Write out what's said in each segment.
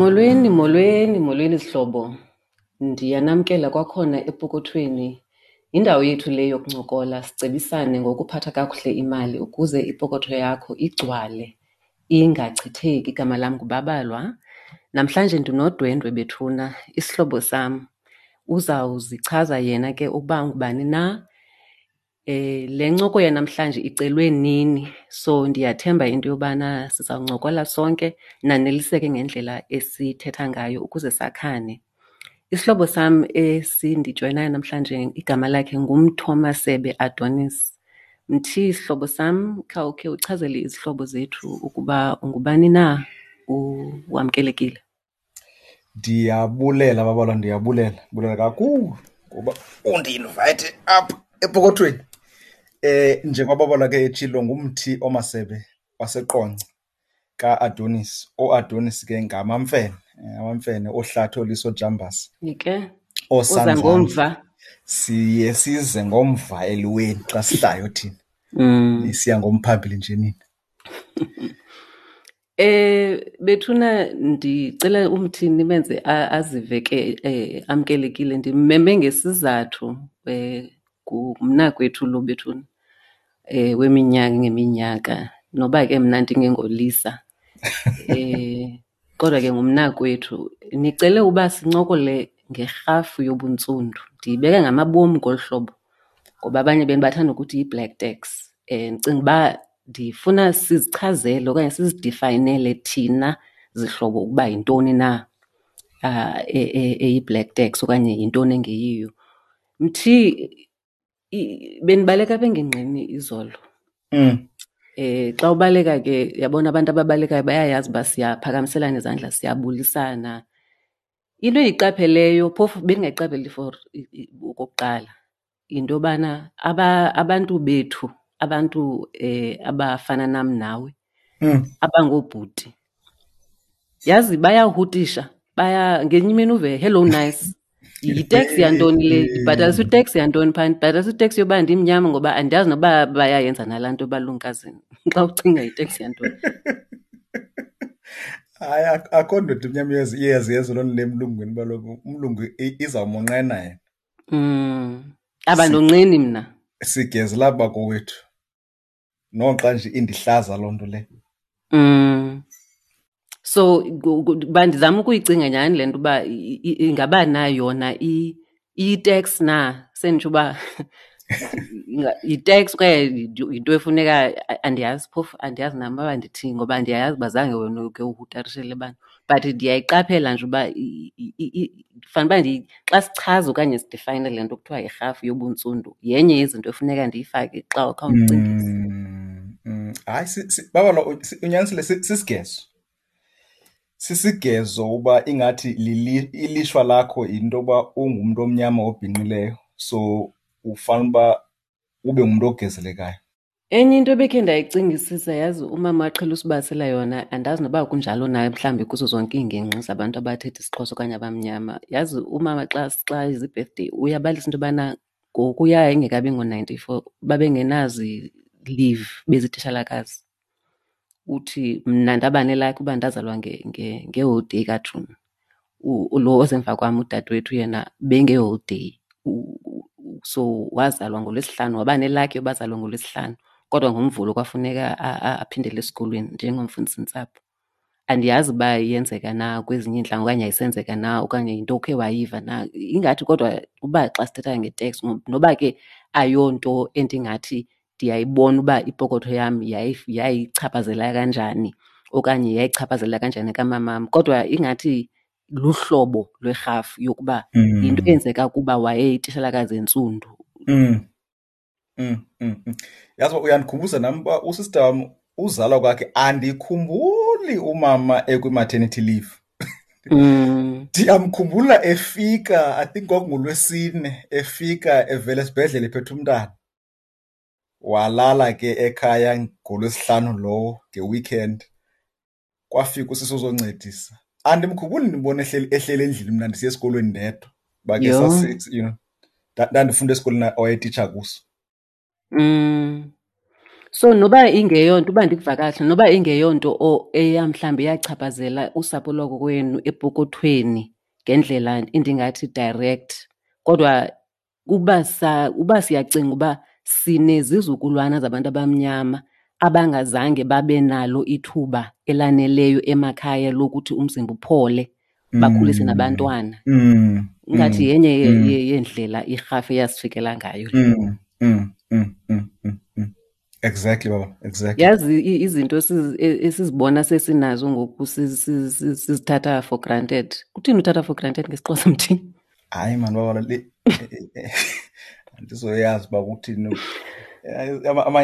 Molweni, molweni, molweni zihlobo. Ndiyanamkela kwakhona epokothweni. Yindawo yethu le yokuncokola sicebisane ngokuphatha kakuhle imali ukuze ipokotho yakho igcwale ingachitheki. Igama lam nguBabalwa. Namhlanje ndinodwendwe bethuna, isihlobo sam. Uzawuzichaza yena ke ukuba ungubani na. Le ncoko yanamhlanje icelwe nini, so ndiyathemba into yobana sizawuncokola sonke naneliseke ngendlela esithetha ngayo ukuze sakhane. Isihlobo sam esindijoyinayo namhlanje igama lakhe nguMthomasebe Adonis. Mthi, sihlobo sam, khawukhe uchazele izihlobo zethu ukuba ungubani na, wamkelekile. Ndiyabulela Babalwa, ndiyabulela, ndibulela kakhulu ngoba undi-invayithe apha epokothweni. Njengoba Babalwa ke etshilo nguMthi oMasebe waseQonce kaAdonis. OoAdonis ke ngamaMfene, amaMfene ooHlathi, ooLiso, ooJambase. Ke uza ngomva. Siye size ngomva eliweni xa sihlayo thina. Nisiya ngomphambili nje nina. Bethuna ndicela umthi nimenze azive ke amkelekile. Ndimmeme ngesizathu, ngumnakwethu lo bethuna weminyaka ngeminyaka noba ke mna ndingengoLisa. Kodwa ke ngumnakwethu. Nicele uba sincokole ngerhafu yobuntsundu. Ndiyibeka ngamabom ngolu hlobo ngoba abanye benu bathanda ukuthi yi-black tax. Ndicinga uba ndifuna sizichazele okanye sizidifayinele thina zihlobo ukuba yintoni na eyi-black tax okanye yintoni engeyiyo. Mthi, bendibaleka apha engingqini izolo. Xa ubaleka ke, yabona abantu ababalekayo bayayazi uba siyaphakamiselana izandla, siyabulisana. Into endiyiqapheleyo, phofu bendingayiqapheli for okokuqala, yinto yobana abantu bethu, abantu abafana nam nawe, abangoobhuti, yazi bayahutisha, baya ngenye imini uve hello nice. Yiteksi yantoni le? Ndibhatalisa iteksi yantoni phaa? Ndibhatalisa iteksi yoba ndimnyama ngoba andiyazi noba bayayenza nalaa nto balumkazini. Xa ucinga yiteksi yantoni? Hayi, akho ndoda imnyama iyaziyenza loo nto le emlungwini, uba kaloku umlungu izawumonqena yena. Abandonqeni mna. Sigezela bakowethu. Noxa nje indihlaza loo nto le. So uba ndizama ukuyicinga nyhani le nto uba ingaba na yona iyi-tax na, senditsho uba yi-tax okanye yinto efuneka, andiyazi phofu, andiyazi nam uba ndithini ngoba ndiyayazi uba zange wena uke uhutarishele abantu. But ndiyayiqaphela nje uba fanele uba xa sichaza okanye sidifayine le nto kuthiwa yirhafu yobuntsundu, yenye yezinto efuneka ndiyifake xa khawundicingise. Hayi, Babalwa, unyanisile, sisigezo. Sisigezo uba ingathi ilishwa lakho yinto yoba ungumntu omnyama obhinqileyo, so ufanele uba ube ngumntu ogezelekayo. Enye into ebekhe ndayicingisisa, yazi umama aqhela usibalisela yona, andazi noba kunjalo na mhlawumbi kuzo zonke iingingqi zabantu abathetha isiXhosa okanye abamnyama. Yazi umama xa izi-birthday uyabalisa into yobana ngokuya ingekabi ngo-94 babengenazi leave bezititshalakazi. Uthi mna ndaba nelakhi uba ndazalwa ngeholiday kaJuni. Lo osemva kwam udadewethu yena bengeholiday. So wazalwa ngoLwesihlanu, waba nelakhi yoba azalwe ngoLwesihlanu, kodwa ngoMvulo kwafuneka aphindele esikolweni njengomfundisintsapho. Andiyazi uba iyenzeka na kwezinye iintlanga okanye ayisenzeka na okanye yinto okhe wayiva na. Ingathi kodwa uba xa sithetha nge-tax, noba ke ayonto endingathi ndiyayibona uba ipokotho yam yayichaphazela kanjani okanye yayichaphazela kanjani kamamam, kodwa ingathi luhlobo lwerhafu yokuba yinto eyenzeka kuba wayeyitishalakazi entsundu. Yazi uba uyandikhumbuza nam uba usista wam uzalwa kwakhe andikhumbuli umama ekwi-maternity leave. Ndiyamkhumbula efika, I think kwakunguLwesine, efika evela esibhedlele ephethe umntana. Walala ke ekhaya ngoLwesihlanu lowo nge-weekend. Kwafika usisi ozoncedisa. Andimkhumbuli ndibona ehleli endlini mna ndisiya esikolweni ndedwa. Uba ke ndandifunda esikolweni awayetitsha kuso. So noba ingeyonto, uba ndikuva kakuhle, noba ingeyonto eya mhlawumbi yachaphazela usapho lwakokwenu epokothweni ngendlela endingathi direct, kodwa uba siyacinga uba sinezizukulwana zabantu abamnyama abangazange babe nalo ithuba elaneleyo emakhaya lokuthi umzimba uphole, bakhulise nabantwana. Ingathi yenye yeendlela irhafu eyasifikela ngayo le. Exactly, baba. Exactly. Yazi izinto esizibona sesinazo ngoku sizithatha for granted. Kuthini uthatha for granted ngesiXhosa, mthini? Hayi man, baba, le andizoyazi uba kuthini.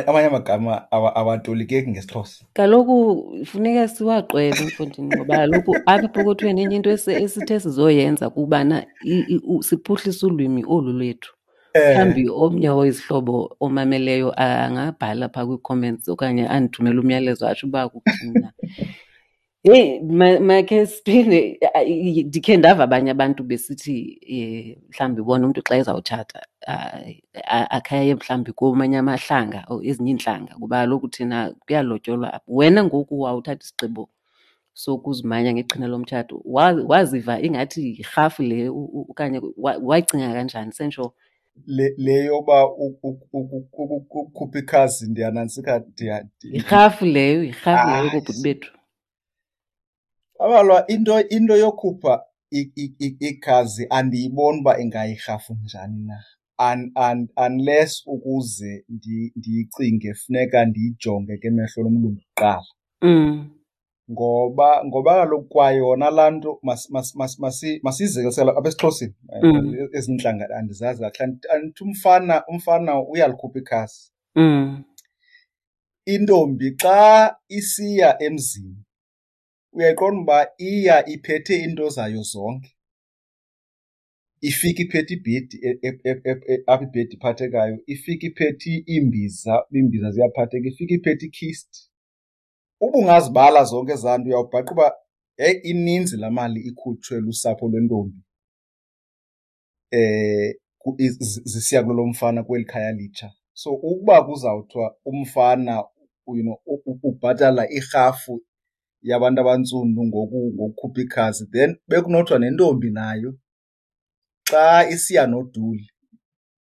Amanye amagama awatolikeki ngesiXhosa. Kaloku funeka siwaqwebe, mfondini, ngoba kaloku apha epokothweni enye into esithe sizoyenza kubana siphuhlise ulwimi olu lwethu. Mhlawumbi omnye wezihlobo omameleyo angabhala phaa kwii-comments okanye andithumele umyalezo atsho uba kuthini na. Heyi, makhe siphinde, ndikhe ndava abanye abantu besithi mhlawumbi bona umntu xa ezawutshata, akhe aye mhlawumbi komanye amahlanga or ezinye iintlanga, kuba kaloku thina kuyalotyolwa apha. Wena ngoku wawuthatha isigqibo sokuzimanya ngeqhina lomtshato, waziva ingathi yirhafu le okanye wayicinga kanjani sentsho? Le yoba ukukhupha ikhazi ndiyanantsika, Yirhafu leyo, yirhafu leyo kobhuti bethu. Abalwa, into yokhupha ikhazi andiyiboni uba ingayirhafu njani na. Unless ukuze ndiyicinge funeka ndiyijonge ke emehlo lomlungu kuqala. Ngoba kaloku kwayona laa nto masiyizekisele apha esiXhoseni. Ezinye iintlanga andizazi kakuhle. Andithi umfana uyalikhupha ikhasi. Intombi xa isiya emzini uyayiqonda uba iya iphethe iinto zayo zonke. Ifike iphethe ibhedi, apha ibhedi iphathekayo, ifike iphethe iimbiza, iimbiza ziyaphatheka, ifike iphethe ikhist. Uba ungazibala zonke ezaa nto uyawubhaqa uba heyi, ininzi laa mali ikhutshwe lusapho lwentombi zisiya kulo mfana kweli khaya litsha. So ukuba kuzawuthiwa umfana ubhatala irhafu yabantu abantsundu ngokukhupha ikhazi, then bekunothiwa nentombi nayo xa isiya noduli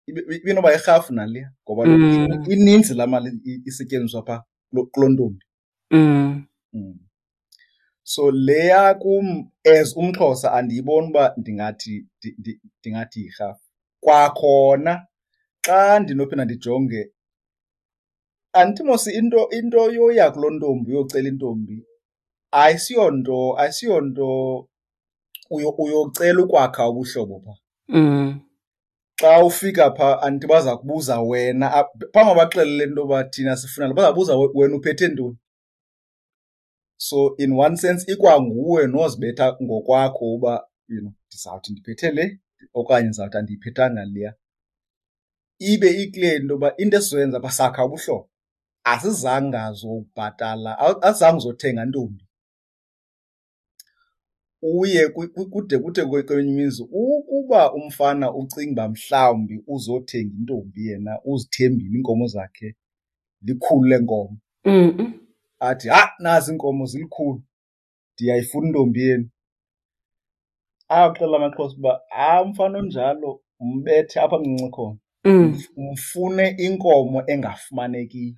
ibinoba yirhafu naleya, ngoba ininzi laa mali isetyenziswa phaa kuloo ntombi. So leya kum as umXhosa andiyiboni uba ndingathi yirhafu. Kwakhona xa ndinophinda ndijonge, andithi mos into yoya kuloo ntombi uyocela intombi ayisiyonto uyocela ukwakha ubuhlobo phaa. Xa ufika phaa andithi baza kubuza wena, phambi bakuxelele into yoba thina sifuna, baza kubuza wena uphethe ntoni. So in one sense ikwanguwe nozibetha ngokwakho uba ndizawuthi ndiphethe le okanye ndizawuthi andiyiphethanga leya. Ibe ikule into yoba into esizoyenza apha sakha ubuhlobo, asizange zobhatala, asizange uzothenga ntombi. Uye kude kude kwenye imizi ukuba umfana ucinga uba mhlawumbi uzothenga intombi yena uzithembile iinkomo zakhe likhulu leenkomo. Athi, ha, nazi iinkomo zilikhulu, ndiyayifuna intombi yenu. Axela amaXhosa uba, ha, umfana onjalo umbethe apha mncinci khona. Umfune inkomo engafumanekiyo.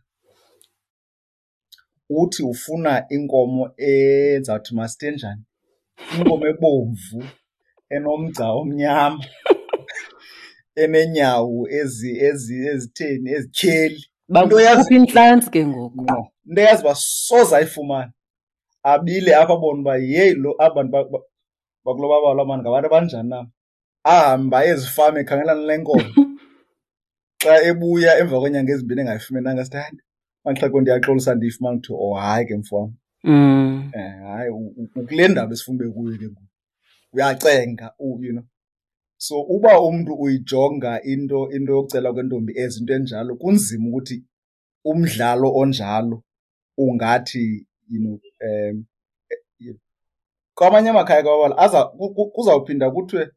Uthi ufuna inkomo ezawuthi masithe njani? Inkomo ebomvu, enomgca omnyama, eneenyawo ezitheni, ezityheli. Into yazi Bakukhupha intlantsi ke ngoku. Ngqo. Into eyazi uba soze ayifumane. Abile apha abone uba yeyi lo aba bantu bakulo babala mani ngabantu abanjani na. Ahambe aye ezifama ekhangela le nkomo. Xa ebuya emva kweenyanga ezimbini engayifumenanga, sithi, hayi, Manxhego, ndiyaxolisa ndiyifumana. Kuthiwa, oh, hayi ke mfo wam. Hayi, ukule ndaba esifuna ube kuyo ke ngoku. Uyacenga, you know. So uba umntu uyijonga into yokucela kwentombi as into enjalo, kunzima ukuthi umdlalo onjalo ungathi, you know, kwamanye amakhaya kwabala, kuzawuphinda kuthiwe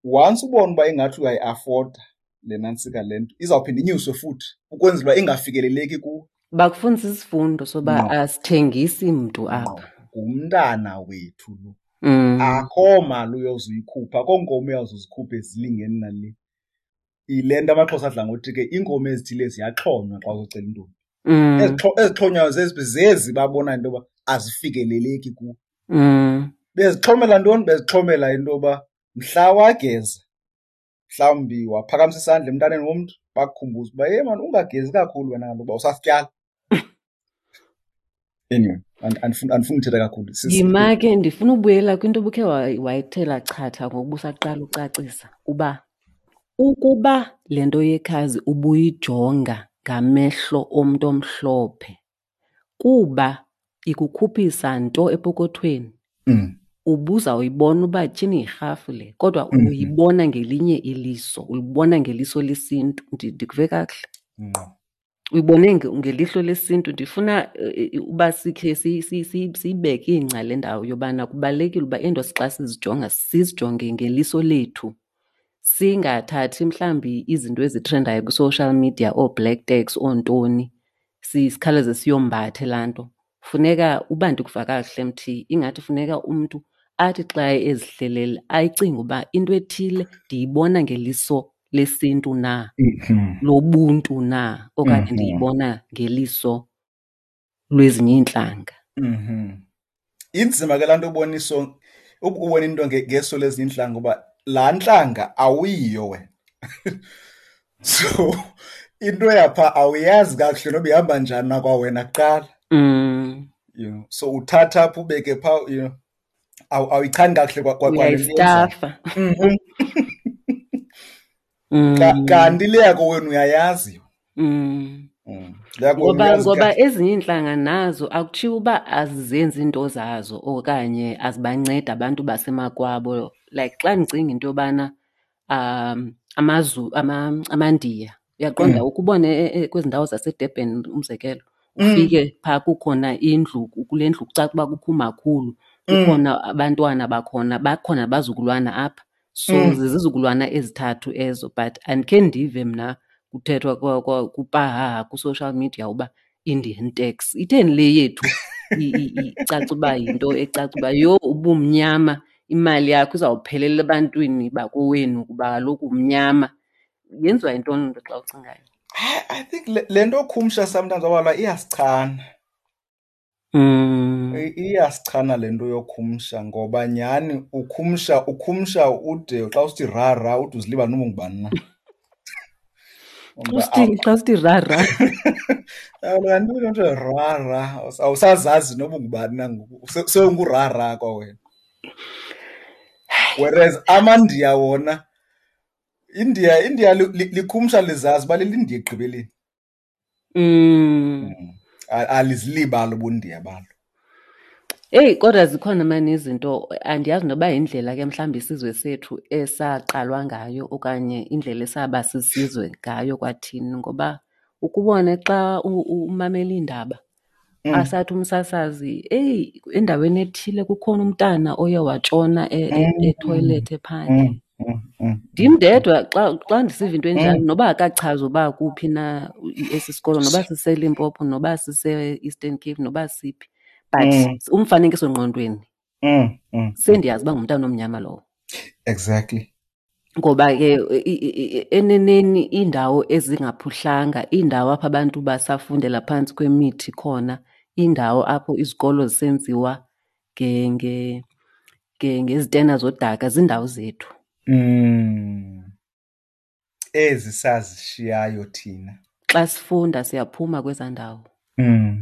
once ubona uba ingathi uyayi-afforda le nantsika le nto izawuphinda inyuswe futhi ukwenzela uba ingafikeleleki kuwe. Bakufundisa isifundo soba asithengisi mntu apha. Ngumntana wethu lo. Akho mali uyozuyikhupha, akho nkomo uyawuzuzikhupha ezilingeni nale. Yile nto amaXhosa adla ngothi ke iinkomo ezithile ziyaxhonywa xa uzocela intombi. Ezixhonywayo zezi zezi babona into yoba azifikeleleki kuwo. Bezixhomela ntoni? Bezixhomela into yoba mhla wageza, mhlawumbi waphakamisa isandla emntaneni womntu, bakukhumbuze uba ye mani ungagezi kakhulu wena kaloku uba usasityala. Anyway, andifuni uthetha kakhulu. Yima ke, ndifuna ubuyela kwinto obukhe wayithela chatha ngokuba usaqala ucacisa uba ukuba le nto yekhazi ubuyijonga ngamehlo omntu omhlophe kuba ikukhuphisa nto epokothweni, ubuzawuyibona uba tyhini yirhafu le, kodwa uyibona ngelinye iliso, uyibona ngeliso lesintu. Ndikuve kakuhle? Ngqo. Uyibone ngelihlo lesintu. Ndifuna uba sikhe siyibeke ingca le ndawo yobana kubalulekile uba iinto xa sizijonga sizijonge ngeliso lethu, singathathi mhlawumbi izinto ezitrendayo kwi-social media, oo-black tax, oontoni, sikhawuleze siyombathe laa nto. Funeka uba ndikuva kakuhle Mthi, ingathi funeka umntu athi xa ezihlelele ayicinge uba into ethile ndiyibona ngeliso lesintu na, lobuntu na, okanye ndiyibona ngeliso lwezinye iintlanga. Inzima ke laa nto ubona iso, ubona into ngeso lezinye iintlanga ngoba laa ntlanga awuyiyo wena. So into yapha awuyazi kakuhle noba ihamba njani na kwawena kuqala. So uthatha apha ubeke phaa, awuyichani kakuhle kwa le nto yenzayo. Uyayistafa. Kanti le yakho wena uyayazi. Le yakho wena uyazi Ngoba kahle. ezinye iintlanga nazo akutshiwo uba azizenzi iinto zazo okanye azibancedi abantu basemakwabo. Like xa ndicinga into yobana, amaNdiya, uyaqonda ukubone kwezi ndawo zaseDurban umzekelo, ufike phaa kukhona indlu, kule ndlu kucaca uba kukho umakhulu, kukhona abantwana bakhona, bakhona abazukulwana apha. So zizizukulwana ezithathu ezo, but andikhe ndive mna kuthethwa kupahaha ku-social media uba Indian tax. Itheni le yethu icaca uba yinto ecaca uba yho ubumnyama, imali yakho izawuphelela ebantwini bakowenu kuba kaloku umnyama. Yenziwa yintoni loo nto xa ucingayo? I think le nto khumsha sometimes abalwa iyasichana. Iyasichana le nto yokhumsha ngoba nyhani ukhumsha ude xa usithi ra ra ude uzilibale noba ungubani na. Xa usithi ra ra. Kaloku kanti into ra ra, awusazazi noba ungubani na ngoku, sewungura ra kwawena. Whereas amaNdiya wona, India likhumsha lizazi uba lilindiya ekugqibeleni. Alizilibali ubundiya balo. Eyi, kodwa zikhona mani izinto, andiyazi noba yindlela ke mhlawumbi isizwe sethu esaqalwa ngayo okanye indlela esaba sisizwe ngayo kwathini, ngoba ukubone xa umamela iindaba, asathi umsasazi, eyi, endaweni ethile kukhona umntana oye watshona ethoyilethi ephandle. Ndim ndedwa xa ndisiva into enjalo, noba akachazi uba kuphi na esi sikolo, noba siseLimpopo, noba sise-Eastern Cape, noba siphi, but umfanekiso ngqondweni, sendiyazi uba ngumntana omnyama lowo. Ngoba ke eneneni iindawo ezingaphuhlanga, iindawo apho abantu basafundela phantsi kwemithi khona, iindawo apho izikolo zisenziwa ngezitena zodaka, ziindawo zethu. Ezi sazishiyayo thina. Xa sifunda siyaphuma kwezaa ndawo.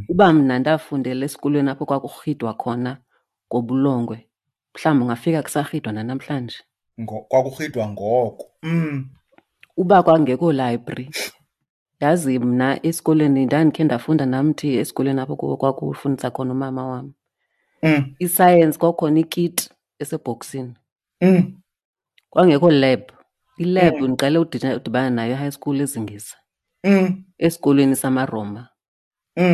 Uba mna ndafundela esikolweni apho kwakurhidwa khona ngobulongwe, mhlawumbi ungafika kusarhidwa nanamhlanje. Kwakurhidwa ngoko. Uba kwangekho library. Yazi mna esikolweni ndandikhe ndafunda namthi esikolweni apho kwakufundisa khona umama wam. Isayensi kwakukhona ikiti esebhoksini. Kwangekho lab. Ilab ndiqale udibana nayo e-high school eZingisa. Esikolweni samaRoma.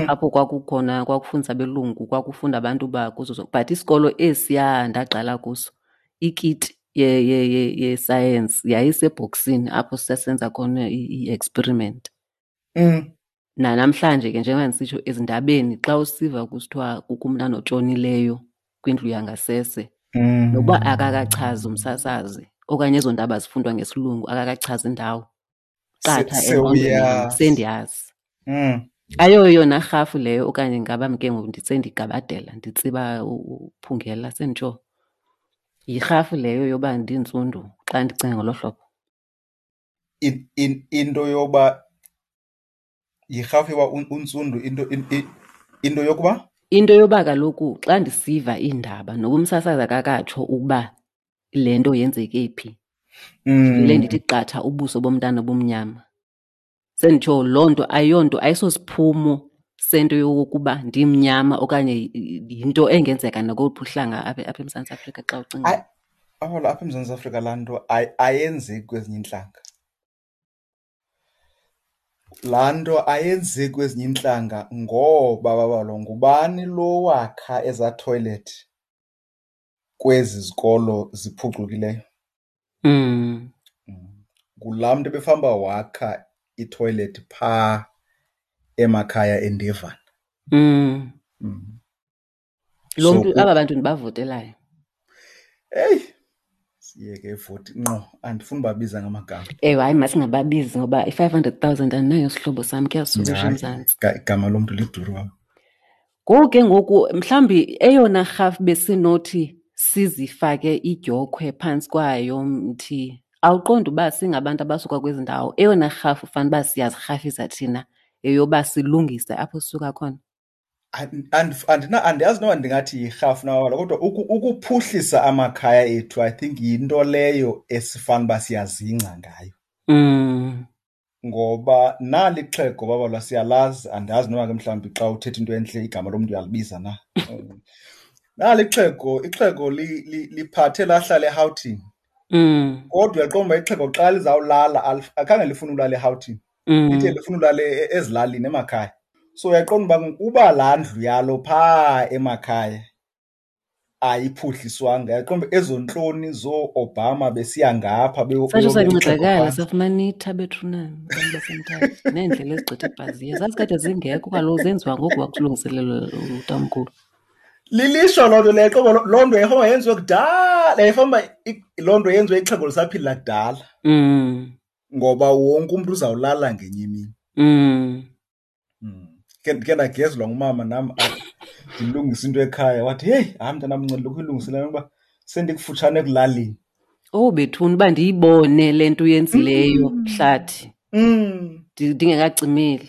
Apho kwakukhona, kwakufundisa abelungu, kwakufunda abantu bakuzo zonke. But isikolo esiya ndaqala kuso, ikiti yesayensi yayisebhoksini apho sisasenza khona i-experiment. Nanamhlanje ke njengoba ndisitsho ezindabeni xa usiva kusithiwa kukho umntana otshonileyo kwindlu yangasese, nokuba akakachazi umsasazi okanye ezo ndaba zifundwa ngesilungu akakachazi indawo, qatha engqondweni sendiyazi. Ayoyona rhafu leyo okanye ngaba ke ngoku sendigabadela nditsiba uphungela senditsho. Yirhafu leyo yoba ndintsundu xa ndicinga ngolo hlobo. Into yoba yirhafu yoba untsundu, into yokuba? Into yoba kaloku xa ndisiva iindaba noba umsasazi akakatsho ukuba le nto yenzeke phi, ndivele ndithi qatha ubuso bomntana obumnyama. Senditsho loo nto ayonto, ayisosiphumo sento yokokuba ndimnyama okanye yinto engenzeka nakoluphi uhlanga apha eMzantsi Afrika xa ucinga. Apha eMzantsi Afrika laa nto ayenzeki kwezinye iintlanga. Laa nto ayenzeki kwezinye iintlanga ngoba babalo ngubani lo wakha ezaa toilet kwezi zikolo ziphucukileyo? Ngulaa mntu ebefamba wakha itoilet phaa emakhaya eNdevana. Lo mntu, aba bantu ndibavotelayo. Eyi, siyeke ivoti ngqo, andifuni ubabiza ngamagama. Ewe, hayi masingababizi ngoba i-500,000 andinayo sihlobo sam, kuyasuka eMzantsi. Igama lomntu liduru wam. Ngoku ke ngoku mhlawumbi eyona rhafu besinothi sizifake idyokhwe phantsi kwayo mthi, awuqondi uba singabantu abasuka kwezi ndawo, eyona rhafu fanele uba siyazirhafisa thina yeyoba silungise apho sisuka khona. Andiyazi noba ndingathi yirhafu na wala, kodwa ukuphuhlisa amakhaya ethu, I think yinto leyo esifana uba siyazingca ngayo. Ngoba nali ixhego babalwa siyalazi, andazi noba ke mhlawumbi xa uthetha into entle igama lomntu uyalibiza na. Nali ixhego, ixhego liphathe lahlala eRhawutini. Kodwa uyaqonda uba ixhego xa lizawulala, akhange lifune ulala eRhawutini. Lithe lifuna ulala ezilalini emakhaya. So uyaqonda uba uba laa ndlu yalo phaa emakhaya ayiphuhliswanga, uyaqonda uba ezo ntloni zoo-Obama besiya ngapha Satsho beyobeka ixhego sancedakala, phantsi. safumana itha bethunana abantu baseMthatha neendlela ezigqitha ebhaziya. Zazikade zingekho kaloku, zenziwa ngoku kwakulungiselelwa utamkhulu. Lilishwa loo nto leyo, qobo loo nto yayifamba yenziwe kudala, yayifamba loo nto yenziwe ixhego lisaphila kudala. Ngoba wonke umntu uzawulala ngenye imini. Ke ndagezwa ngumama nam, ndilungisa into ekhaya, wathi heyi, hayi mntanam, nceda lokhu ilungisele uba sendikufutshane ekulaleni. Oh bethuna, uba ndiyibone le nto uyenzileyo, Hlathi. Ndingekacimeli.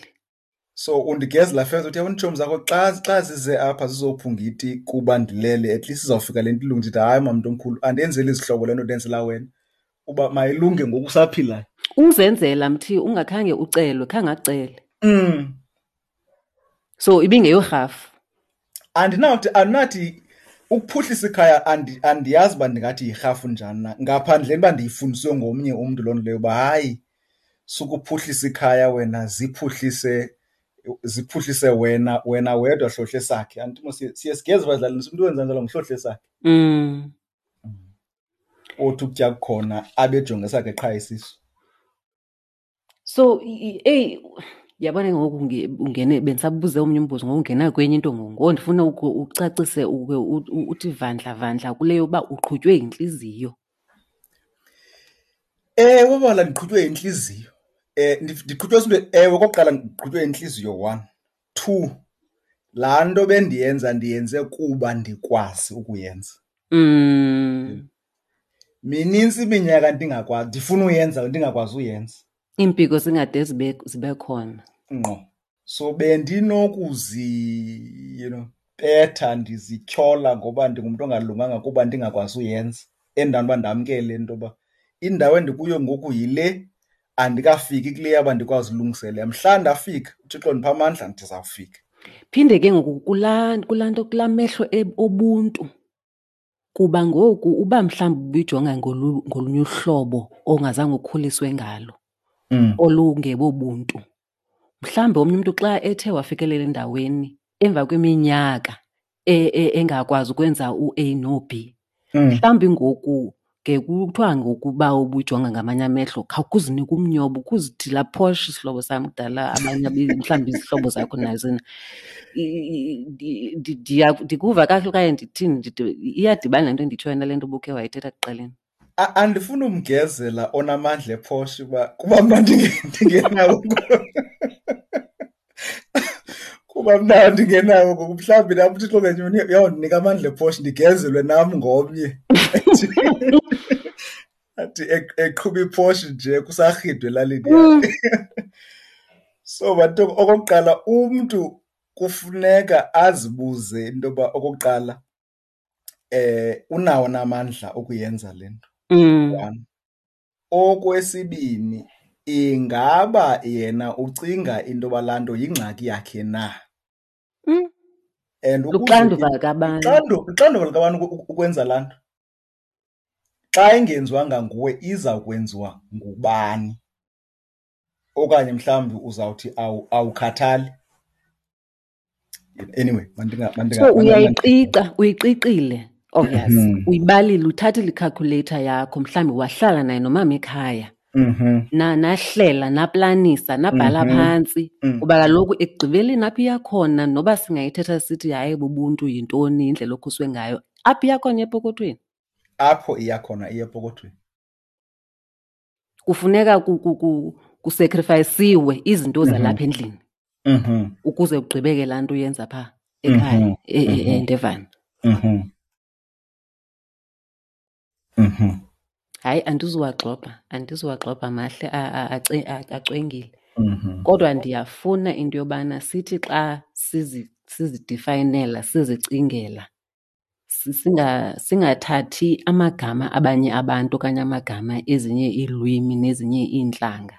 So undigezela first, uthi yabona iitshomi zakho xa zize apha zizophunga iti kuba ndilele, at least izawufika le nto ilunge. Ndithi hayi mamntu omkhulu, andenzeli izihlobo le nto ndenzela wena, uba mayilunge ngoku usaphilayo. Uzenzela mthi ungakhange ucelwe, khange acele. So ibingeyorhafu. Andinathi ukuphuhlisa ikhaya, andiyazi uba ndingathi yirhafu njani na, ngaphandleni uba ndiyifundiswe ngomnye umntu loo nto leyo uba hayi, sukuphuhlisa ikhaya wena, ziphuhlise wena wedwa hlohle sakhe. Andithi mos siye sigeze badlalini, umntu wenza njalo nguhlohle sakhe. Othi ukutya kukhona abejonge sakhe qha isisu. So, eyi, yabona ngoku ungene, bendisabuze omnye umbuzo, ngoku ungena kwenye into ngoku. Ngoku ndifuna ucacise uke uthi vandla vandla kule yoba uqhutywe yintliziyo. Ewe, bala ndiqhutywe yintliziyo. Ndiqhutywe zinto, ewe, okokuqala ndiqhutywe yintliziyo, 1. 2, laa nto bendiyenza ndiyenze kuba ndikwazi ukuyenza. Minintsi iminyaka ndingakwazi, ndifuna uyenza, ndingakwazi uyenza. Iimpiko zingade zibe khona. Ngqo. So bendinokuzi, betha ndizityhola ngoba ndingumntu ongalunganga kuba ndingakwazi uyenza. Endaweni uba ndamkele into yoba indawo endikuyo ngoku yile, andikafiki kule yaba ndikwazi ulungiselela. Mhla ndafika, uThixo ndipha amandla, ndizawufika. Phinde ke ngoku kulaa nto, kulaa mehlo obuntu. Kuba ngoku uba mhlawumbi ubuyijonga ngolunye uhlobo ongazange ukhuliswe ngalo, olungebobuntu. Mhlawumbi omnye umntu xa ethe wafikelela endaweni emva kweminyaka engakwazi ukwenza u-A no-B, mhlawumbi ngoku Ke kuthiwa ngokuba ubujonga ngamanye amehlo khawukuzinike umnyobo ukuzithi laa Porsche sihlobo sam kudala abanye mhlawumbi izihlobo zakho nazo. Ndikuva kakuhle okanye ndithini? Iyadibana le nto endiyitshoyo nale nto ubukhe wayithetha ekuqaleni. Andifuni umgezela onamandla ePorsche uba kuba mna ndingenawo. Kuba mna ndingenawo ngoku, mhlawumbi nam uThixo ngenye imini uyawundinika amandla ePorsche ndigezelwe nam ngomnye. Athi eqhuba iPorsche nje kusarhidwe elalini yakhe. So bantu, okokuqala umntu kufuneka azibuze into yoba okokuqala unawo namandla okuyenza le nto. One. Okwesibini, ingaba yena ucinga into yoba laa nto yingxaki yakhe na? And ukuze Luxanduva likabantu. Luxanduva likabantu ukwenza laa nto. Xa ingenziwanga nguwe iza kwenziwa ngubani? Okanye mhlawumbi uzawuthi awukhathali. Anyway, So uyayiqiqa, uyiqiqile, obvious. Uyibalile, uthathile i-calculator yakho, mhlawumbi wahlala naye nomama ekhaya. Nahlela, naplanisa, nabhala phantsi. Kuba kaloku ekugqibeleni apho iya khona, noba singayithetha sithi hayi bubuntu yintoni, indlela okhuswe ngayo, apho iya khona epokothweni. Apho iya khona iya epokothweni. Kufuneka kusacrificeiwe izinto zalapha endlini. Ukuze ugqibeke laa nto uyenza phaa ekhaya, eNdevana. Hayi, andizuwagxobha mahle, acwengile. Kodwa ndiyafuna into yobana sithi xa sizidefayinela, sizicingela, singathathi amagama abanye abantu okanye amagama ezinye iilwimi nezinye iintlanga.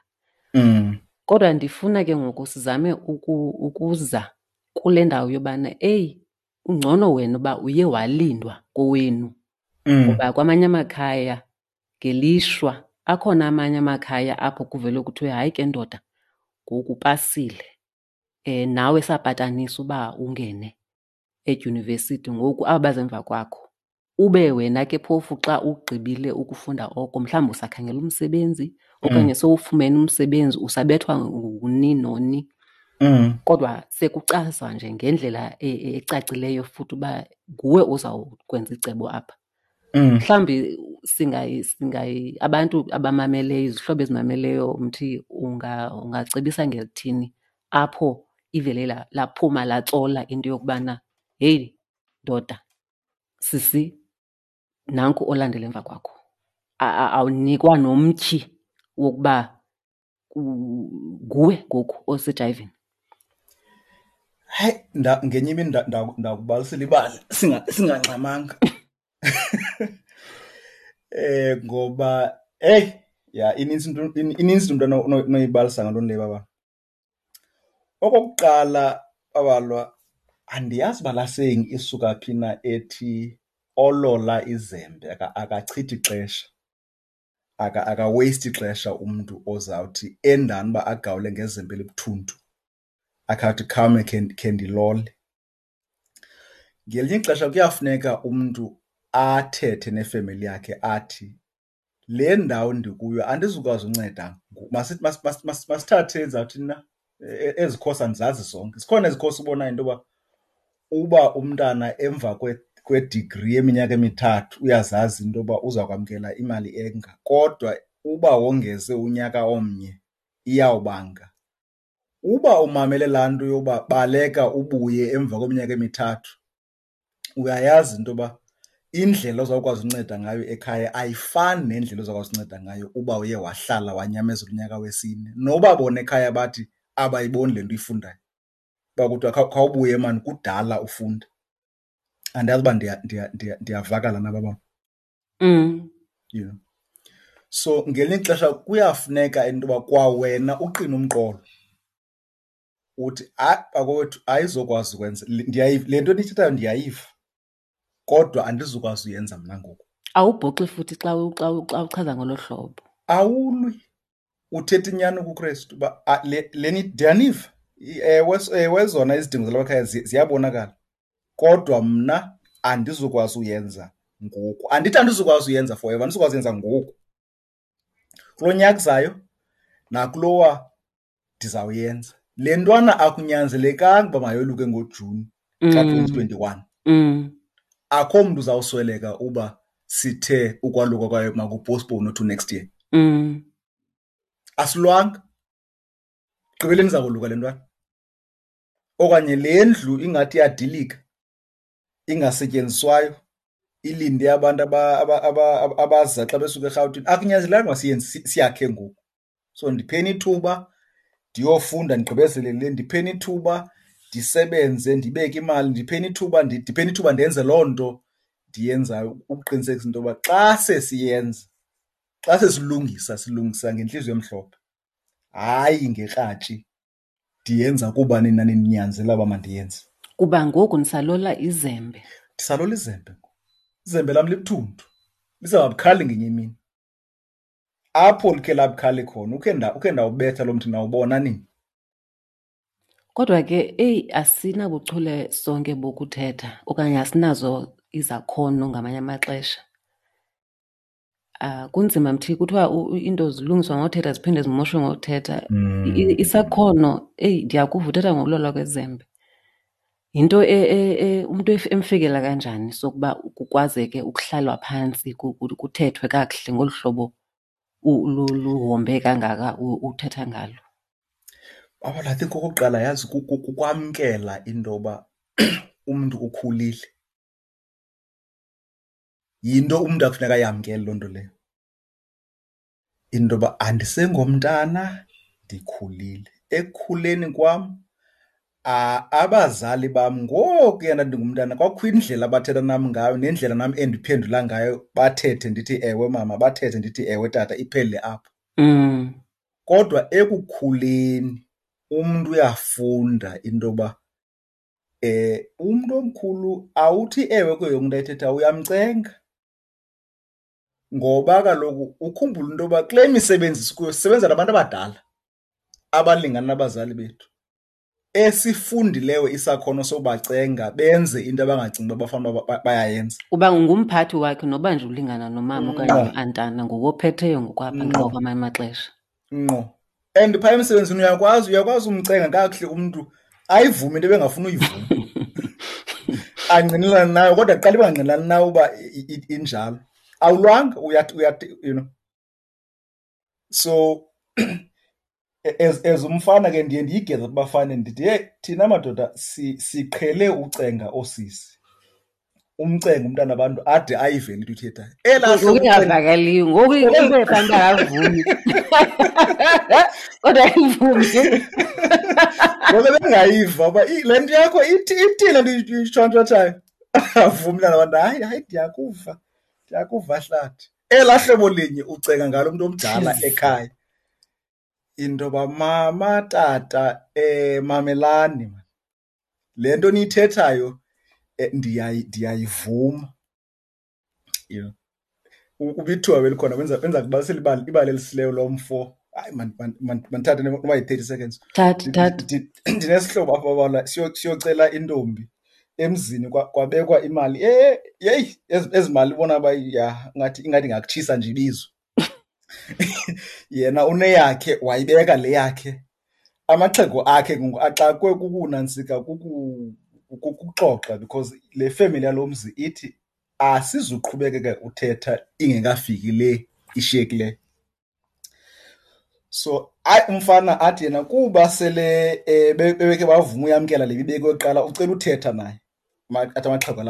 Kodwa ndifuna ke ngoku sizame ukuza kule ndawo yobana, eyi, ungcono wena uba uye walindwa kowenu. Ngoba kwamanye amakhaya ngelishwa akhona amanye amakhaya apho kuvele kuthiwe hayi ke ndoda, ngoku upasile. Nawe sapatanisa uba ungene edyunivesithi, ngoku aba baze emva kwakho. Ube wena ke phofu xa ugqibile ukufunda oko, mhlawumbi usakhangela umsebenzi okanye sowufumene umsebenzi, usabethwa nguni noni. Kodwa sekuchazwa nje ngendlela ecacileyo futhi uba nguwe ozawukwenza icebo apha. Mhlawumbi abantu abamameleyo, izihlobo ezimameleyo, Mthi, ungacebisa ngelithini apho ivele laphuma latsola into yokubana heyi ndoda, sisi, nanku olandela emva kwakho. Awunikwa nomtyhi wokuba nguwe ngoku osejayivini. Hayi, ngenye imini ndakubalisela ibali singangxamanga. Ngoba, hey, ya, inintsi into, inintsi into onoyibalisa ngaloo nto leyo, baba. Okokuqala, babalwa, andiyazi uba laa saying isuka phi na ethi olola izembe akachithi ixesha. Aka-waste ixesha umntu ozawuthi endani uba agawule ngezembe elibuthuntu, akhe athi khawume khe ndilole. Ngelinye ixesha kuyafuneka umntu athethe nefemeli yakhe athi le ndawo ndikuyo andizukwazi unceda ngoku. Masithathe ndizawuthini na, ezi khosi andizazi zonke. Zikhona ezi khosi ubonayo into yoba uba umntana emva kwedigri yeminyaka emithathu uyazazi into yoba uza kwamkela imali enga, kodwa uba wongeze unyaka omnye iyawubanga. Uba umamele laa nto yoba baleka ubuye emva kweminyaka emithathu, uyayazi into yoba indlela ozawukwazi unceda ngayo ekhaya ayifani nendlela ozawukwazi unceda ngayo uba uye wahlala wanyamezela unyaka wesine. Noba bona ekhaya bathi abayiboni le nto uyifundayo, uba kuthiwa khawubuye maan kudala ufunda. Andiyazi uba ndiyavakala na baba. So ngelinye ixesha kuyafuneka into yoba kwawena uqine umqolo uthi hayi bakowethu ayizokwazi ukwenza le nto niyithethayo ndiyayiva, kodwa andizukwazi uyenza mna ngoku. Awubhoxi futhi xa uchaza ngolo hlobo. Awulwi, uthetha inyani kuKrestu uba, le ndiyaniva. Ewe, ewe, zona izidingo zalapha ekhaya ziyabonakala, kodwa mna andizukwazi uyenza ngoku. Andithi andizukwazi uyenza forever, andizukwazi uyenza ngoku. Kulo nyaka uzayo nakulowa ndizawuyenza. Le ntwana akunyanzelekanga uba mayoluke ngoJuni ka-2021. Akho mntu uzawusweleka uba sithe ukwaluka kwayo makupostpone to next year. Asilwanga. Gqibeleni izakoluka le ntwana. Okanye le ndlu ingathi iyadilika, ingasetyenziswayo, ilinde abantu abaza xa besuka eRhawutini. Akunyanzelekanga uba siyenze, siyakhe ngoku. So ndipheni ithuba ndiyofunda ndigqibezele le, ndipheni ithuba ndisebenze ndibeke imali, ndipheni ithuba, ndipheni ithuba ndenze loo nto ndiyenzayo ukuqinisekisa into yoba xa sesiyenza, xa sesilungisa, silungisa ngentliziyo emhlophe, hayi ngekratshi ndiyenza kuba nina nindinyanzela uba mandiyenze. Kuba ngoku nisalola izembe. Ndisalola izembe ngoku. Izembe lam libuthuntu, lizawuba bukhali ngenye imini. Apho likhe labukhali khona, ukhe ndawubetha lo mthi nawubona nini. Kodwa ke, eyi, asinabuchule sonke bokuthetha okanye asinazo izakhono ngamanye amaxesha. Kunzima mthi, kuthiwa iinto zilungiswa ngothetha ziphinde zimoshwe ngothetha. Isakhono, eyi, ndiyakuva uthetha ngokulolwa kwezembe. Yinto umntu emfikela kanjani sokuba kukwazeke ukuhlalwa phantsi kuthethwe kakuhle ngolu hlobo luhombe kangaka uthetha ngalo? Baba, I think okokuqala yazi kukwamkela into yoba umntu ukhulile. Yinto umntu akufuneka ayamkele loo nto leyo. Into yoba andisengomntana, ndikhulile. Ekukhuleni kwam, abazali bam ngokuya ndandingumntana kwakukho indlela abathetha nam ngayo nendlela nam endiphendula ngayo, bathethe ndithi ewe mama, bathethe ndithi ewe tata, iphele apho. Kodwa ekukhuleni umntu uyafunda into yoba umntu omkhulu awuthi ewe kuyo yonke into ayithethayo, uyamcenga. Ngoba kaloku ukhumbule into yoba kule misebenzi sikuyo sisebenza nabantu abadala abalingana nabazali bethu, esifundileyo isakhono sobacenga benze into abangacingi uba bafanele uba bayayenza. Uba ngumphathi wakhe noba nje ulingana nomama okanye no-antana, nguwe ophetheyo ngokwapha ngqo kwamanye amaxesha. Ngqo. And phaya emsebenzini uyakwazi umcenga kakuhle umntu ayivume into ebengafuni uyivuma. Angqinelane nayo, kodwa kuqala ibangqinelani nayo uba injalo. Awulwanga, uyathi, you know. So as umfana ke ndiye ndiyigeze kubafana ndithi, hey, thina madoda siqhele ucenga oosisi. Umcenga umntana wabantu ade ayive into ithethayo. Elaa Ngoku hlobo ucenga ingavakaliyo, ngoku into efana uba akavumi. Kodwa ayivumi. Ngoku bengayiva uba le nto yakho ithi le nto uyitshontshotshayo. Avumi umntana wabantu, hayi, hayi, ndiyakuva, ndiyakuva hlathi. Elaa hlobo linye ucenga ngalo mntu omdala Jeez. ekhaya. Into yoba mama, tata, mamelani man. Le nto niyithethayo, ndiyayivuma. You know. Ubithiwa belikhona, wenza kubalisela ibali elisileyo lo mfo. Hayi, mandithathe noba yi-30 seconds. Thatha, thatha. Ndinesihlobo apha babala, siyocela intombi emzini, kwabekwa imali. Yeyi, ezi mali ubona uba ya, ingathi ingakutshisa nje ibizo. Yena uneyakhe, wayibeka le yakhe. Amaxhego akhe ngoku axakwe kukunantsika, kukuxoxa, because le family yalo mzi ithi asizuqhubekeka uthetha ingekafiki le ishiyekileyo. So hayi, umfana athi yena kuba sele bebekhe bavuma uyamkela le ibekwe kuqala, ucela uthetha naye. Athi amaxhego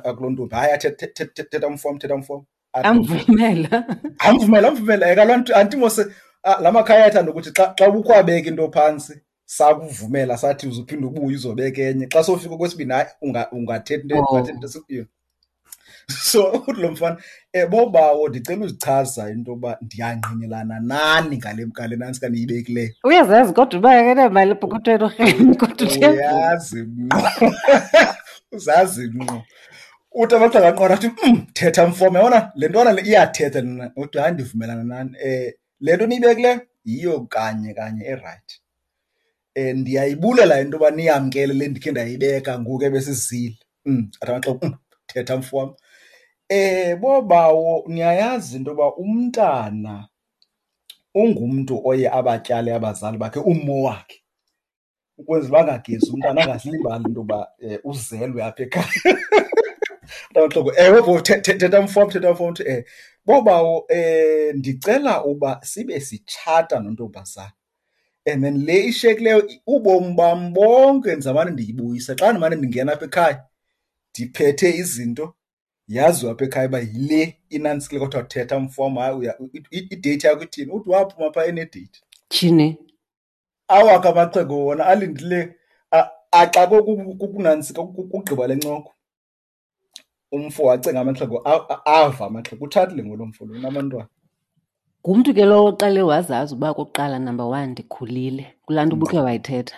akuloo ntombi, hayi, athi, thetha mfo, thetha mfo. Athi, Amvumela. Amvumela, amvumela. Kaloku anti mose, la makhaya ayathanda ukuthi xa ubukwabeka into phantsi, sakuvumela sathi uzuphinde ubuye uzobeka enye. Xa sowufika kwesibini, hayi, ungathetha into, ungathetha into esikuyo. So uthi lo mfana, bobawo, ndicela uzichaza into yoba ndiyangqinelana nani ngale nantsi kaniyibekileyo. Uyazazi kodwa uba akanamali epokothweni urheme, kodwa uthe Uyazi ngqo. Uzazi ngqo. Uthi amaxhego aqonda athi, thetha mfo, yabona le ntwana le iyathetha lena. Uthi hayi, ndivumelana nani. Le nto niyibekileyo yiyo kanye kanye erayithi. Ndiyayibulela into yoba niyamkele le ndikhe ndayibeka ngoku ebesizile. Athi amaxhego, thetha mfo wam. Bobawo, niyayazi into yoba umntana ungumntu oye abatyale abazali bakhe ummo wakhe ukwenzela uba angagezi umntana angazilibali into yoba uzelwe apha ekhaya. Mntamaxhego, ewe bo, thetha mfo wam, thetha mfo wam. Uthi, bobawo, ndicela uba sibe sitshata nontombazana and then le ishiyekileyo ubomi bam bonke ndizawumane ndiyibuyisa. Xa ndimane ndingena apha ekhaya ndiphethe izinto, yaziwa apha ekhaya uba yile inantsikile. Kodwa thetha mfo wam, hayi, ideyithi yakho ithini? Uthi waphuma phaa enedeyithi. Tyhini. Awakhe amaxhego wona alindile axakwe kukunantsika kugqiba le ncoko. Umfo wacenga amaxhego, ava amaxhego, utshatile ngolo mfo lo, unabantwana. Ngumntu ke lowo oqale wazazi uba okokuqala, number one, ndikhulile. Kulaa nto ubukhe wayithetha.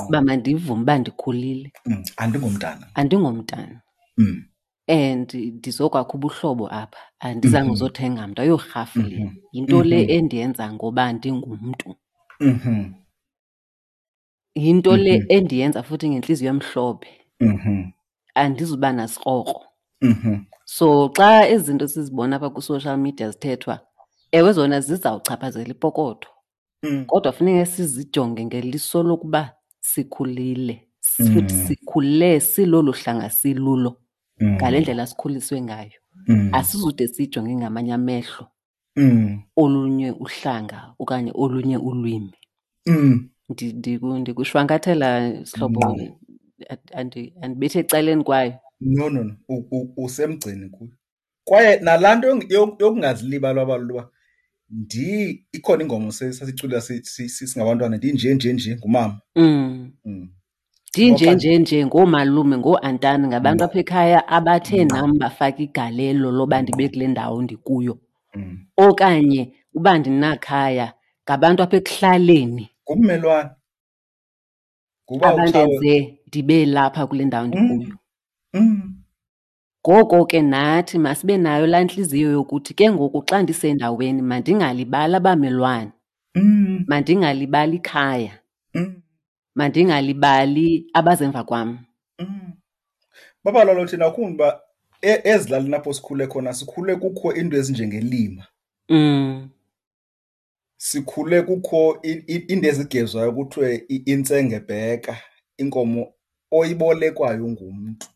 Uba mandivume uba ndikhulile. Andingomntana. Andingomntana. And ndizokwakha ubuhlobo apha. Andizange uzothenga mntu, ayorhafu le. Yinto le endiyenza ngoba ndingumntu. Yinto le endiyenza futhi ngentliziyo emhlophe. Andizuba nasikrokro. So xa ezi zinto sizibona apha kwi-social media zithethwa, ewe zona zizawuchaphazela ipokotho. Kodwa funeka sizijonge ngeliso lokuba sikhulile. Futhi sikhule silolu hlanga silulo. Ngale ndlela sikhuliswe ngayo. Asizude sijonge ngamanye amehlo. Olunye uhlanga okanye olunye ulwimi. Ndikushwankathela sihlobo, andibethe ecaleni kwayo. No, no, no. Usemgceni kuyo. Kwaye nalaa nto yokungazilibali abalulwa uba ikhona ingoma sasicula singabantwana, ndinje, nje, nje, ngumama. Ndinje, nje, nje, ngoomalume, ngooantani, ngabantu apha ekhaya abathe nam bafaka igalelo loba ndibe kule ndawo ndikuyo. Okanye uba ndinakhaya, ngabantu apha ekuhlaleni. Ngummelwane. Nguba Abandenze utshawe. ndibe lapha kule ndawo ndikuyo. Ngoko ke nathi masibe nayo laa ntliziyo yokuthi ke ngoku xa ndisendaweni mandingalibali abamelwane. Mandingalibali ikhaya. Mandingalibali abazemva kwam. Baba lolo thina ukhumbuka uba ezilalini apho sikhule khona, sikhule kukho iinto ezinjengelima. Sikhule kukho iinto ezigezwayo kuthiwe intsengebheka, inkomo oyibolekwayo ngumntu.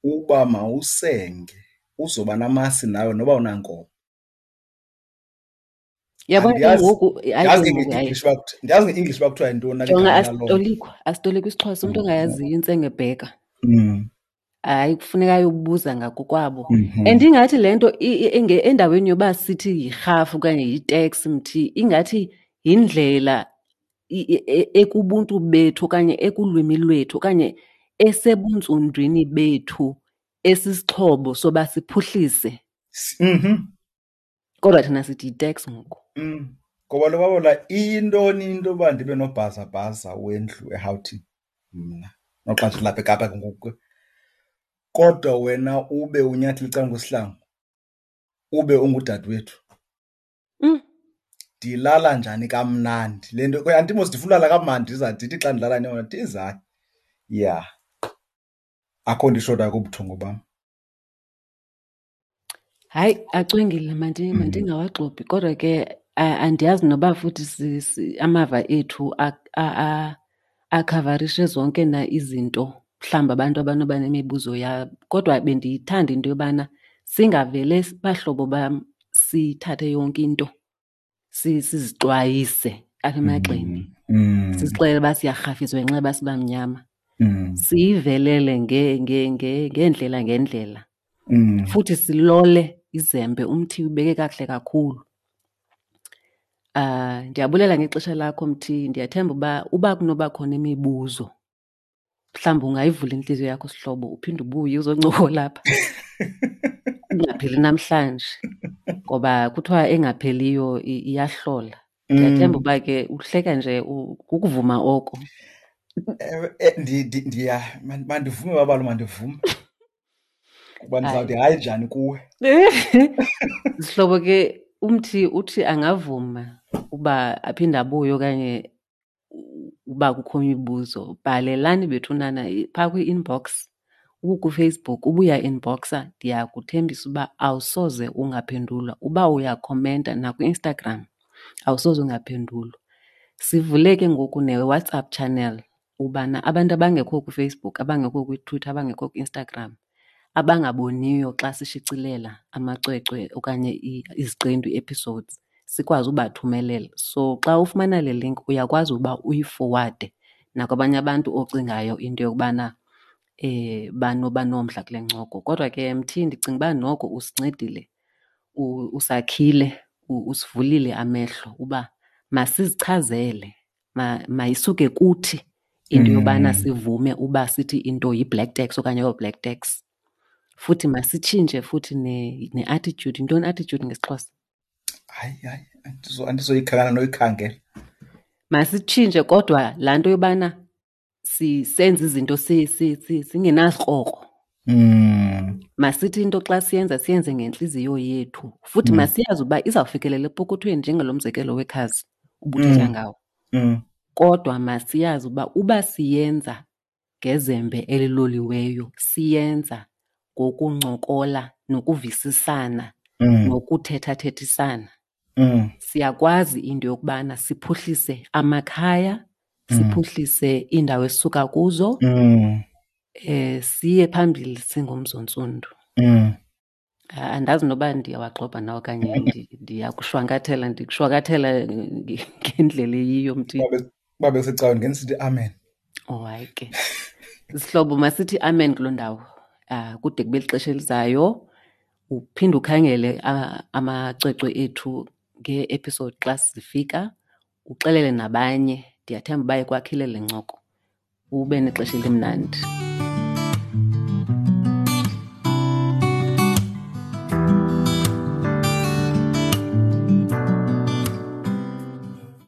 Uba mawusenge, uzoba namasi nawe noba unankomo. Yabona ke Andiyazi, ngoku, hayi ndiyazi ke ngoku, hayi. nge-English uba kuthi-, ndiyazi nge-English uba kuthiwa yintoni na Jonga, ligama laloo nto. asitolikwa isiXhosa, umntu ongayaziyo intsengebheka. Hayi, kufuneka ayobuza ngakokwabo. And ingathi le nto endaweni yoba sithi yirhafu okanye yiteksi mthi, ingathi yindlela ekubuntu bethu okanye ekulwimi lwethu okanye esebuntsundwini bethu esisixhobo soba siphuhlise. Kodwa thina sithi yiteksi ngoku. Ngoba lo babola iyintoni into yoba ndibe nobhazabhaza wendlu eRhawutini mna, noxa ndilapha eKapa ke ngoku. Kodwa wena ube unyathela ecaleni kwesihlangu, ube ungudadewethu. Ndilala njani kamnandi? Le nto, andithi mos ndifuna ulala kamnandi, ndiza ndithi xa ndilala neyona, ndiza. Yeah. Akho nto ishotayo kubuthongo bam. Hayi, acwengile, mandingawagxobhi. Kodwa ke, andiyazi noba futhi amava ethu akhavarishe zonke na izinto, mhlawumbi abantu abanoba nemibuzo yabo. Kodwa bendiyithanda into yobana singavele bahlobo bam sithathe yonke into, sizixwayise apha emagxeni. Sizixelele uba siyarhafiswa ngenxa yoba sibamnyama. Siyivelele ngeendlela ngeendlela. Futhi silole izembe, umthi ubeke kakuhle kakhulu. Ndiyabulela ngexesha lakho mthi, ndiyathemba uba kunoba khona imibuzo, mhlawumbi ungayivula intliziyo yakho sihlobo, uphinde ubuye uzoncokola apha. Ingapheli namhlanje, ngoba kuthiwa engapheliyo iyahlola. Ndiyathemba uba ke uhleka nje kukuvuma oko. Ewe, mandivume babalo, mandivume. Kuba ndizawuthi hayi njani kuwe. Sihlobo ke, umthi uthi angavuma uba aphinde abuye okanye uba kukho imibuzo, bhalelani bethunana phaa kwi-inbox. UkuFacebook uba uyainboxa ndiyakuthembisa uba awusoze ungaphendulwa. Uba uyakhomenta nakwiInstagram awusoze ungaphendulwa. Sivule ke ngoku neWhatsApp channel ubana abantu abangekho kuFacebook, abangekho kwiTwitter, abangekho kwiInstagram, abangaboniyo xa sishicilela amacwecwe okanye iziqendu, ii-episodes, sikwazi ubathumelela. So xa ufumana le link uyakwazi uba uyifowade nakwabanye abantu ocingayo into yokubana banoba nomdla kule ncoko. Kodwa ke Mthi, ndicinga uba noko usincedile, usakhile, usivulile amehlo uba masizichazele, mayisuke kuthi into yobana sivume uba sithi into yi-black tax okanye ayo-black tax. Futhi masitshintshe futhi ne-attitude. Yintoni i-attitude ngesiXhosa? Hayi, hayi, andizoyikhangela noyikhangela. Masitshintshe kodwa laa nto yobana senze izinto singenasikrokro. Masithi into xa siyenza siyenze ngentliziyo yethu. Futhi masiyazi uba izawufikelela epokothweni njengalo mzekelo wekhazi ubuthetha ngawo. Kodwa masiyazi uba uba siyenza ngezembe eliloliweyo, siyenza ngokuncokola nokuvisisana nokuthethathethisana. Siyakwazi into yokubana siphuhlise amakhaya, siphuhlise iindawo esisuka kuzo, siye phambili singumzontsundu. Andazi noba ndiyawagxobha na okanye ndiyakushwankathela, ndikushwankathela ngendlela eyiyo, Mthi. Uba bekusecaweni ngendithi sithi amen. Oh, hayi ke. Sihlobo, masithi amen kuloo ndawo. Kude kube lixesha elizayo. Uphinde ukhangele amacwecwe ethu ngee-episode xa zifika, uxelele nabanye. Ndiyathemba uba ikwakhile le ncoko. Ube nexesha elimnandi.